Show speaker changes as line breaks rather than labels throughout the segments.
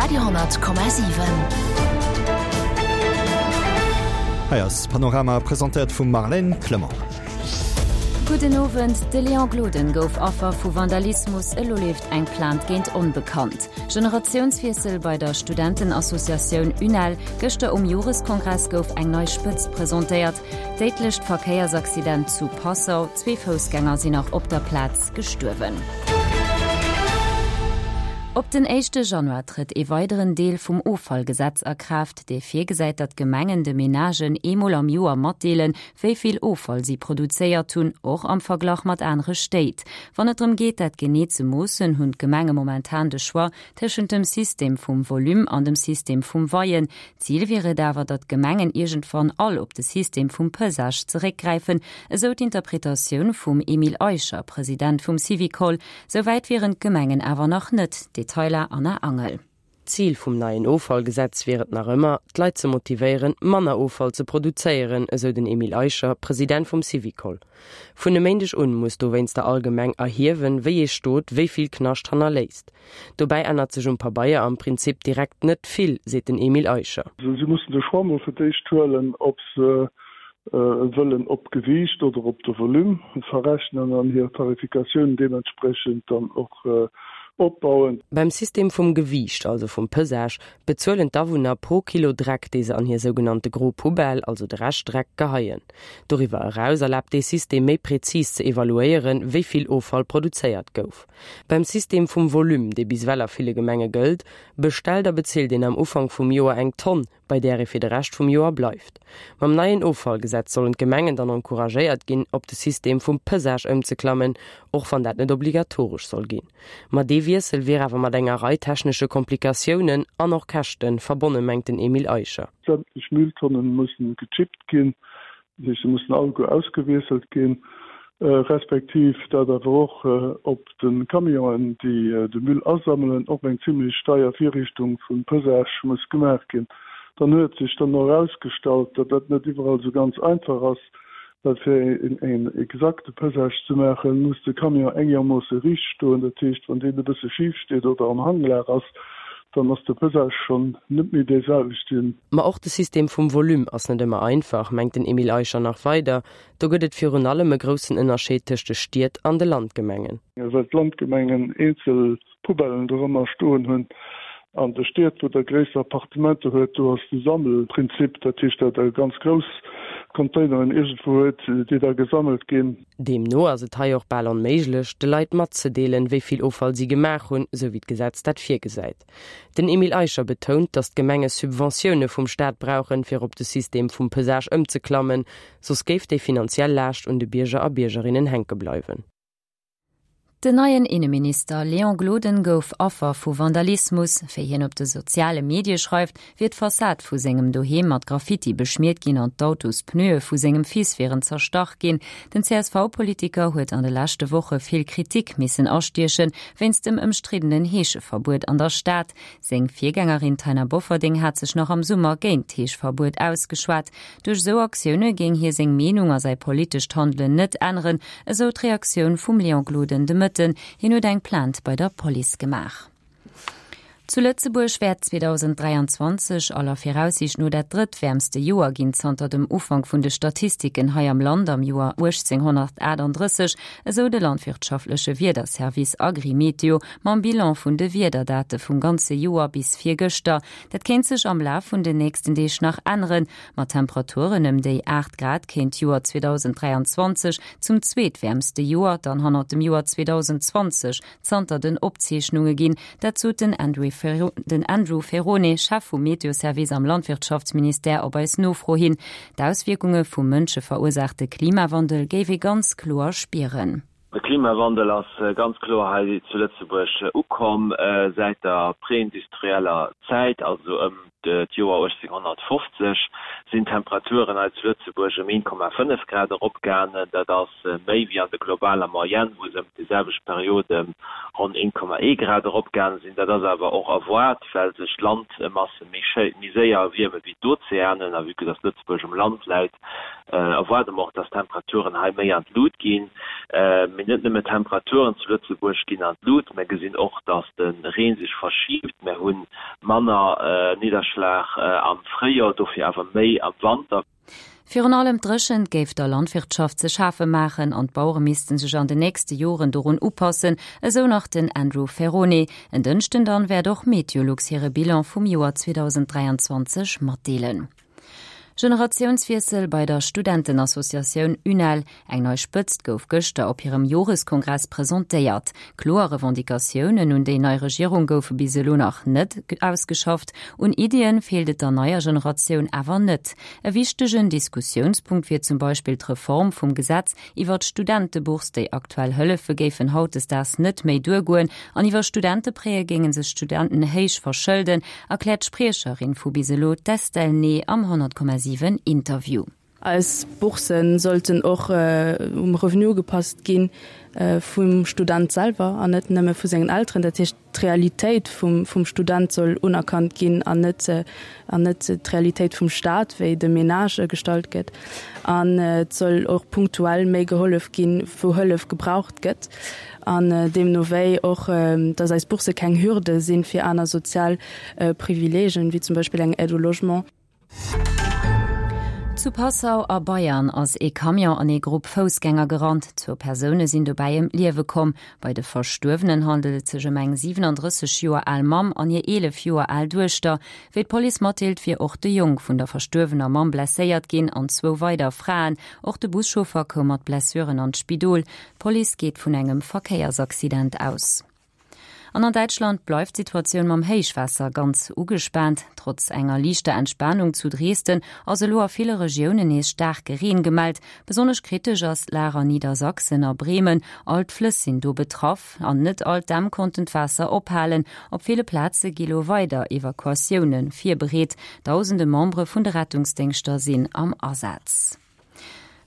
Radio,7.
Hei ass Panorama, presentéiert vum Marlène Clement.
Gudden Owend, De Léon Gloden gouf Affer vu Vandalismus, elo leeft eng Plainte géint Onbekannt. Generatiounswiessel bei der Studentenassociatioun UNEL, gëschter um Joreskongress gouf eng nei Spëtzt presentéiert. Déidlecht Verkéiersaccident zu Passau, zwee Foussgänger sinn nach op der Plaz gestuerwen. Op den éischte Januar trëtt ee weideren Deel vum Offallgesetz a Kraaft, dee virgesäit, datt d'Gemengen de Menagen eemol am Joer matdeelen, wéi vill Offall si produzéiert hunn, och am Verglach mat anere Stéit. Wann et drëm geet, dat genee ze moossen, hunn d'Gemenge momentan de Choix tëschent dem System vum Volume an dem System vum Weien. Zil wier et awer, datt d'Gemengen iergendwann all op de System vum Pesage zeréckgräifen, esou d'Interpretatioun vum Emile Eicher, President vum Syvicol. Sou wäit wieren d'Gemengen awer nach net. Detailer Anna Angel.
D'Zil vum neien Offallgesetz wier et nach ëmmer, d'Leit ze motivéieren, manner Offall ze produzéieren, esou den Emile Eicher, President vum Syvicol. Vun e Méindeg un muss dowéinster all Gemeng erhiewen, wéi ee Stot wéi vill Knascht hannerléisst. Dobäi ännert sech um Pabeier am Prinzip direkt net vill, seet den Emile Eicher.
Si mussen de Choix mol fir d'éischt huelen, ob se wëllen op d'Gewiicht oder op de Volume verrechnen an hir Tarifikatioun deementspriechend dann och opbauen.
Beim System vum Gewiicht, also vum Pesage, bezuelen d'Awunner pro Kilo Dreck, dee se an hir sougenannte gro Poubelle, also de Reschtdreck, geheien. Doriwwer eraus erlaabt dee System méi prezis ze evaluéieren, wéi vill Offall produzéiert gouf. Beim System vum Volume, dee bis ewell a ville Gemenge gëllt, bestellt a bezilt een am Ufank vum Joer eng Tonn, bei där ee fir de Rescht vum Joer bleift. Mam neien Offallgesetz sollen d'Gemengen dann encouragéiert ginn, op de System vum Pesage ëmzeklammen, och wann dat net obligatoresch soll ginn. Ma dee Wiessel wier awer mat enger Rei technesche Komplikatiounen an och Käschte verbonne mengt den Emile Eicher.
Sämtlech Mülltonnen mussen gechippt ginn, Dat heescht, se mussen alleguer ausgewiesselt ginn, respektiv dat awer och op de Camionen, déi de Müll asammelen, och eng zimlech deier Virrichtung vum Pesage muss gemaach ginn. Dann huet sech dann och erausgestallt, datt dat net iwwerall esou ganz einfach ass, well fir een exakte Pesage ze maachen, muss de Camion engermoosse riicht stoen. Dat heescht, wann deen e bësse schif steet oder am Hanglag ass, dann ass de Pesage schonn net méi dee selwechten.
Ma och de System vum Volume ass net ëmmer einfach, mengt den Emile Eicher nach weider. Do gëtt et virun allem e groussen Ënnerscheed tëscht de Stied an de Landgemengen.
Well d'Landgemengen eenzel Poubellen dorëmmer stoen hunn. An de Stied, wou der gréisser Appartementer huet, do ass de Sammelprinzip, dat heescht, datt der ganz grouss Containeren iergendwou huet, déi da gesammelt ginn.
Deemno ass et hei och bal onméiglech, de Leit matzedeelen, wéi vill Offall si gemaach hunn, esou wéi d'Gesetz dat virgesäit. Den Emile Eicher betount, datt d'Gemenge Subventioune vum Staat brauchen, fir op de System vum Pesage ëmzeklammen, soss géif déi finanziell Laascht un de Bierger a Biergerinnen hänke bleiwen.
Den neien Inneminister Léon Gloden gouf Affer vu Vandalismus. Wéi hien op de soziale Medie schreift, wier d'Fassad vu sengem Doheem mat Graffiti beschmiert ginn an d'Autospneue vu sengem Fils wieren zerstach ginn. Den CSV-Politiker huet an de leschte Woche vill Kritik missen astiechen, wéinst dem ëmstriddenen Heescheverbuet an der Stad. Seng Virgängerin Taina Bofferding hat sech nach am Summer géint d'Heeschverbuet ausgeschwat. Duerch esou Aktioune géing hie seng Meenung a säi politescht Handelen net änneren, esou d'Reaktioun vum Léon Gloden de Mëtten. Hien huet eng Plainte bei der Police gemaach. Zu Lëtzebuerg wäert 2023 aller Viraussiicht no dat drëttwäermste Joer ginn zanter dem Ufank vun de Statistiken hei am Land am Joer 1838, esou de landwirtschaftleche Wiederservice Agrimeteo mam Bilan vun de Wiederdate vum ganze Joer bis virgëschter. Dat kéint sech am Laf vun den nächsten Deeg nach änneren. Mat Temperaturen ëm déi 8 Grad kéint d'Joer 2023 zum zweetwäermste Joer dann hannert dem Joer 2020 zanter den Opzeechnunge ginn. Dat sot den Andrew Ferrone, Chef vum Meteoservice am Landwirtschaftsministère op eis Nofro hin. D'Auswierkunge vum mënscheverursaachte Klimawandel géif ee ganz kloer spieren.
De Klimawandel ass ganz kloer hei zu Lëtzebuerg ukomm säit der preindustrieller Zäit, also ëm d'Joer 1850 sinn d'Temperaturen hei zu Lëtzebuerg ëm 1,5 Grad eropgaangen. Dat ass méi wéi an der globaler Moyenne, wou se ëm déi selwecht Period ëm ronn 1,1 Grad eropgaange sinn. Dat ass awer och erwaart, well sech d'Landmasse méi séier erwierme wéi d'Ozeanen a vue que dass Lëtzebuerg um Land läit, erwaarde mer och, dass d'Temperaturen hei méi an d'Lut ginn. Mee net nëmme d'Temperaturen zu Lëtzebuerg ginn an d'Lut, mer gesinn och, dass de Reen sech verschiibt. Mer hu. Manner Nidderschlag am Fréijoer, dofir awer méi am Wanter.
Virun allem d'Dréchent géif der Landwirtschaft ze schafe maachen an d'Bauere misste sech an den nächste Joren dorun upassen, esou nach den Andrew Ferrone. En Dënschden dann wäert och Meteolux hire Bilan vum Joer 2023 matdeelen. Generatiounswiessel bei der Studentenassociatioun UNEL, Eng nei Spëtzt gouf gëschter op hirem Joreskongress presentéiert. Kloer Revendicatiounen un déi nei Regierung goufe bis elo nach net ausgeschafft. Un Iddien feelt et der neier Generatioun awer net. E wichtegen Diskussiounspunkt wier zum Beispill d'Reform vum Gesetz iwwer d'Studentebourse. Déi aktuell Hëllefe géifen hautdesdaags net méi duergoen an iwwer Studenteprêtë géinge sech d'Studenten héich verschëlden, erkläert d'Spriecherin vu bis elo, d'Estelle Ney am 100,7 Interview.
Eis Boursen sollten och um Revenu ugepasst gi vum Student selwer an net nëmme vu sengen Elteren. Dat heescht, d'Realitéit vum Student soll unerkannt ginn an net an net d'Realitéit vum Staat, wéi de Menage gestallt gëtt. An et soll och punktuell méi gehollef ginn, wou Hëllef gebraucht gëtt. An deemno wéi och, dass eis Bourse keng Hürde sinn fir aner sozial Privileegen, wéi zum Beispill eng Aide au logement.
Zu Passau a Bayern ass ee Camion an ee Grupp Foussgänger gerannt. Zwou Persoune sinn dobäi ëm d'Liewe komm. Bei de Verstuerwenen handelt et sech ëm eng 37 Joer al Mamm an hir 11 Joer al Duechter. Wéi d'Police matdeelt, wier och de Jong vun der verstuerwener Mamm blesséiert ginn an zwou weider Fraen. Och de Buschauffer koum mat Blessuren an d'Spidol. D'Police geet vun engem Verkéiersaccident aus. An an Däitschland bleift d'Situatioun mam Héichwaasser ganz ugespaant. Trotz enger liichter Entspanung zu Dresden ass elo a ville Regiounen nees staarke Reen gemellt. Besonnesch kritesch ass d'Lag an Niedersachsen a Bremen. All d'Flëss sinn do betraff an net all d'Dämm konnten d'Waasser ophalen. Op ville Plaze gi lo weider Evakuatioune virbereet. Dausende Membere vun de Rettungsdéngschter sinn am Asaz.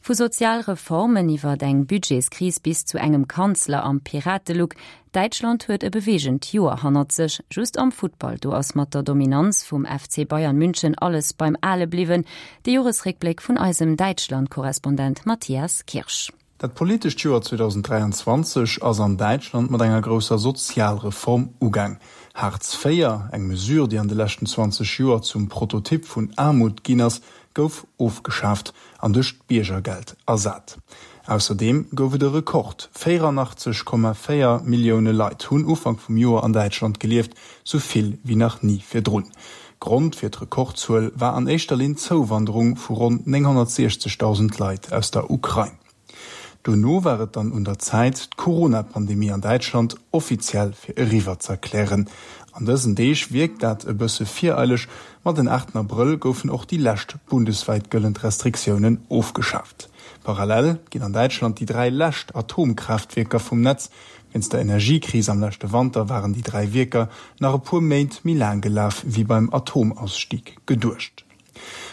Vu Sozialreformen iwwert eng Budgetskris bis zu engem Kanzler am Piratelook, Däitschland huet e beweegend Joer hannert sech. Just am Futtball, do ass mat der Dominanz vum FC Bayern München alles beim Ale bliwwen. De Joresréckbléck vun eisem Däitschland-Korrespondent Matthias Kirsch.
Dat politescht Joer 2023 ass an Däitschland mat enger grousser Sozialreform ugaang. Hartz IV, eng Mesure, déi an de leschten 20 Joer zum Prototyp vun Aarmut ginn ass, gouf ofgeschaaft an duerch d'Biergergeld ersat. Ausserdeem gouf et e Rekord, 84,4 Millioune Leit hunn Ufank vum Joer an Däitschland gelieft, sou vill wéi nach ni virdrun. Grond fir d'Rekordzuel war an éischter Linn d'Zouwanderung vu ronn 960.000 Leit aus der Ukrain. Dono war et dann un der Zäit, d'Corona-Pandemie an Däitschland offiziell fir eriwwer z'erklären. An dësen Deeg wierkt dat e bësse vireileg, ma den 8 Abrëll goufen och déi lescht bundeswäit gëllend Restriktiounen ofgeschaaft. Parallel ginn an Däitschland déi 3 lescht Atomkraaftwierker vum Netz. Wéinst der Energiekris am leschte Wanter waren déi 3 Wierker nach e puer Méint méi laang gelaf wéi beim Atomausstieg geduecht.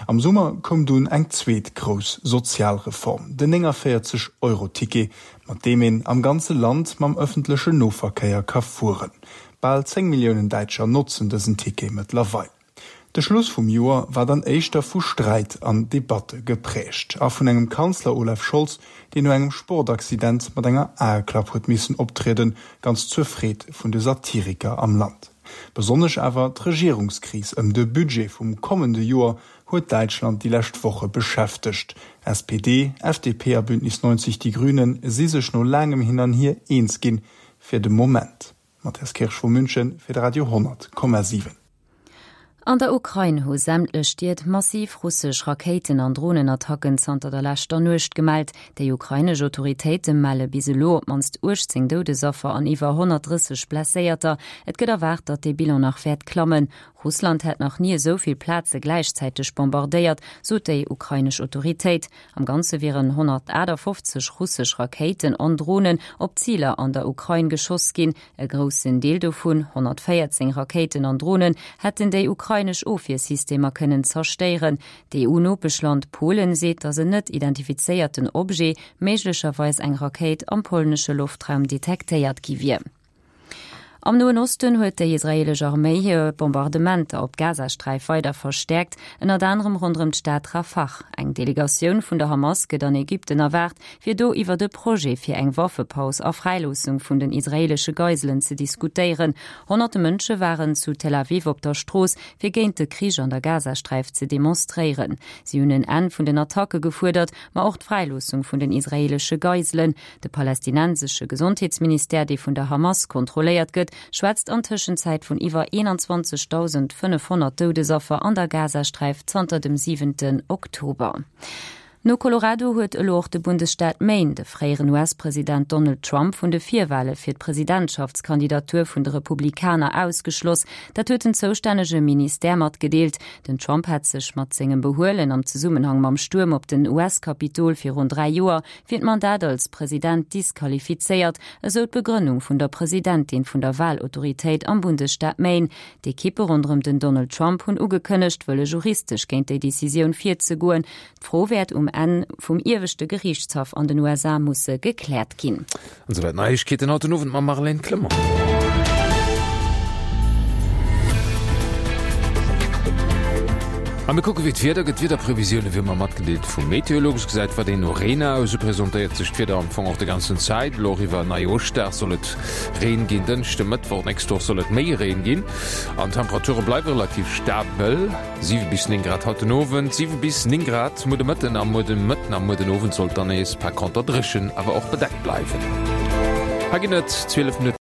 Am Summer koum dunn eng zweet grouss Sozialreform, den 49 Euro Ticket, mat deem een am ganze Land mam ëffentlechen Noverkéier ka fueren. Bal 10 Milliounen Däitscher notzen dësen Ticket mëttlerweil. De Schluss vum Joer war dann éischter vu Sträit an Debatte geprägt a vun engem Kanzler Olaf Scholz, deen no engem Sportaccident mat enger Aeklapp huet missen optrieden, ganz zur Freed vun de Satiriker am Land. Besonnesch awer d'Regierungskris ëm de Budget vum kommende Joer huet Däitschland déi lescht Woche beschäftegt. SPD, FDP a Bündnis 90 Die Grünen si sech no laangem Hin an Hier eens ginn, fir de Moment. Matthias Kirsch vu München fir de Radio 10,7.
An der Ukrain hu sämtlech Stied massiv russesch Rakéiten an Dronenattacken zanter der leschter Nuecht gemellt. Déi ukrainesch Autoritéite melle bis elo op d'mannst 18 Doudesaffer an iwwer 130 Blesséierter. Et gëtt erwaart, datt dee Bilan nach wäert klammen. Russland hätt nach ni esou vill Plaze gläichzäiteg bombardéiert, sot déi ukrainesch Autoritéit. Am Ganze wieren 158 russesch Rakéiten an Dronen op Ziler an der Ukrain geschoss ginn. E groussen Deel dovun, 114 Rakéiten an Dronen, hätten déi ukrainesch Ofwiersystemer kënnen zerstéieren. D'EU-Nopeschland Polen seet, datt en net identifizéierten Objet, méiglecherweis eng Rakéit, am polnesche Loftraum detektéiert gi wier. Am Noen Osten huet déi israeelesch Arméi hir Bombardementer op d'Gazasträif weider verstäerkt, ënnert anerem ronderëm d'Stad Rafah. Eng Delegatioun vun der Hamas gëtt an Ägypten erwaart, fir do iwwert e Projet fir eng Waffepaus a Fräiloossung vun den israeelesche Geiselen ze diskutéieren. Honnerte Mënsche waren zu Tel Aviv op der Strooss, fir géint de Krich an der Gazasträif ze demonstréieren. Si hunn en Enn vun den Attacke gefuerdert, ma och d'Fräiloossung vun den israeelesche Geiselen. De palästinensesche Gesondheetsministère, dee vun der Hamas kontrolléiert gëtt, schwätzt an Tëschenzäit vun iwwer 21.500 Doudesaffer an der Gazasträif zanter dem siwenten Oktober. No Colorado huet elo och de Bundesstaat Maine de fréieren US-President Donald Trump vun de Virwale fir d'Presidentschaftskandidatur vun de Republikaner ausgeschloss. Dat huet den zoustännege Ministère matgedeelt. Den Trump hätt sech mat sengem Behuelen am Zesummenhang mam Stuerm op den US-Kapitol virun 3 Joer fir d'Mandat als President disqualifizéiert, esou d'Begrënnung vun der Presidentin vun der Wahlautoritéit am Bundesstaat Maine. D'Ekippe ronderëm den Donald Trump hunn ugekënnegt, wëlle juristesch géint déi Decisioun virzegoen. D'Fro wäert um Enn vum ieweschte Geriichtshaff an den USA musse gekläert ginn.
An souwäit d'Neiegkeeten haut den Owend mam Marlène Clement. A mir kucke wéi d'Wieder gëtt. D'Wiederprevisioune wéi ëmmer matgedeelt vu Meteolux. Gesäit wat een no Reen aus. Esou presentéiert sech d'Wieder am Fong och de ganzen Zäit. Elo och iwwer Neijoschdag soll et Reen ginn. Dënschde, Mëttwoch nächst Woch soll et méi Reen ginn an d'Temperature bleiwe relativ stabel. 7 bis 9 Grad haut den Owend, 7 bis 9 Grad muer de Mëtten a muer de Mëtten a muer den Owend sollt dann nees par conter dréchen, awer och bedeckt bleiwen. Hei ginn et 12 Minutten.